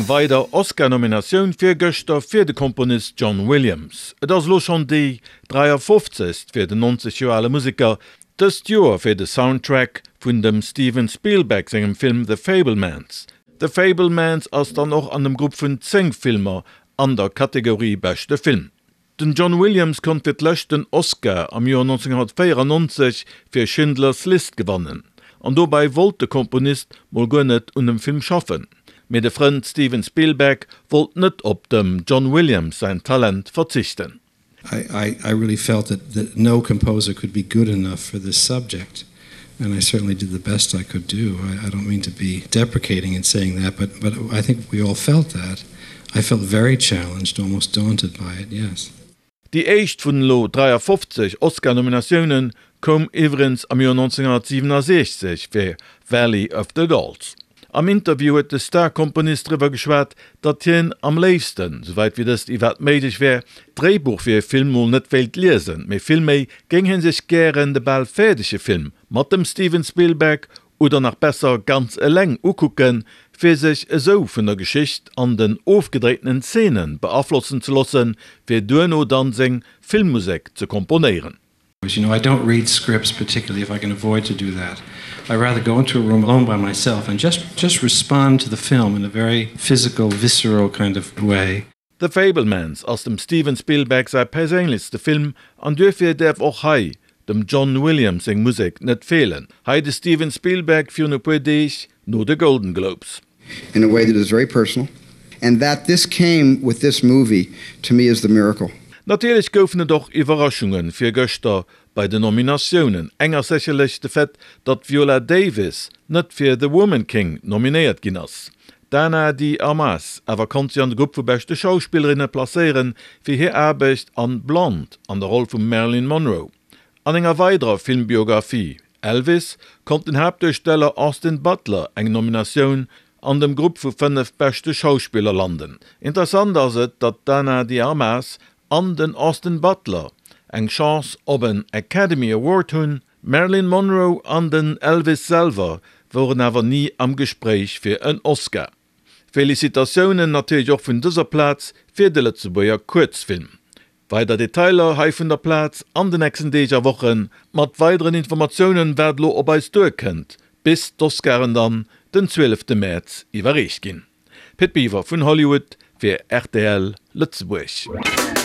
Eng weider Oscar-Nominatioun fir gëschter fir de Komponist John Williams. Et ass elo schonn déi 53. Fir den 90 Joer ale Museker, dëst Joer fir de Soundtrack vun dem Steven Spielberg sengem Film The Fabelmans. The Fabelmans ass dann och an dem Grupp vun 10 Filmer an der Kategorie Beschte Film. Den John Williams konnt fir d'lescht den Oscar am Joer 1994 fir Schindler's List gewannen. An dobäi wollt de Komponist mol guer net un dem Film schaffen. Mee de Frënd Steven Spielberg wollt net op dem John Williams säin Talent verzichten. I I really felt that that no composer could be good enough for this subject and I certainly did the best I could do. I I don't mean to be deprecating in saying that, but but I think we all felt that. I felt very challenged, almost daunted by it, yes. Déi éischt vun elo 53 Oscar-Nominatioune koum iwwregens am Joer 1967 fir Valley of the Dolls. Am Interview huet de Star-Komponist driwwer geschwat, datt hien am léifsten, souwäit wéi dëst iwwerhaapt méiglech wär, d'Dréibuch fir e Film mol net wéilt liesen, mee villméi géing hie sech gären de bal fäerdege Film mat dem Steven Spielberg oder nach besser ganz eleng ukucken, fir sech esou vun der Geschicht an den ofgedréitenen Zeenen beaflossen ze loossen, fir duerno dann seng Filmmusek ze komponéieren. You know, I don't read scripts particularly if I can avoid to do that. I rather go into a room alone by myself and just just respond to the film in a very physical, visceral kind of way. The Fabelmans ass dem Steven Spielberg säi perséinlechste Film an duerfir däerf och hei dem John Williams seng Musek net feelen. Hei de Steven Spielberg virun e puer Deeg no de Golden Globes. In a way that is very personal and that this came with this movie to me is the miracle. Natierlech goufen et och Iwwerraschunge virgëschter bei den Nominatiounen. Eng ass sécherlech de Fait, datt d'Viola Davis net fir The Woman King nominéiert ginn ass. D'Ana de Armas awer konnt sech an de Grupp vu beschte Schauspillerinne placéieren fir hir Aarbecht an Blonde an der Roll vum Marilyn Monroe. An enger weiderer Filmbiographie, Elvis, konnt den Haaptduersteller Austin Butler eng Nominatioun an dem Grupp vu 5 beschte Schauspiller landen. Interessant ass et, datt d'Ana de Armas an den Austin Butler eng Chance op en Academy Award hunn, d'Marilyn Monroe an den Elvis selwer woren awer ni am Gespréich fir en Oscar. Felicitatiounen natierlech och vun dëser Plaz fir de Lëtzebuerger Kuerzfilm. Weider Detailer hei vun der Plaz an de nächsten Deeg a Wochen, mat weideren Informatiounen wat elo op eis duerkënnt, bis d'Oscaren dann den 12 Mäerz iwwerreecht ginn. Pit Biwer vun Hollywood fir rtl Lëtzebuerg.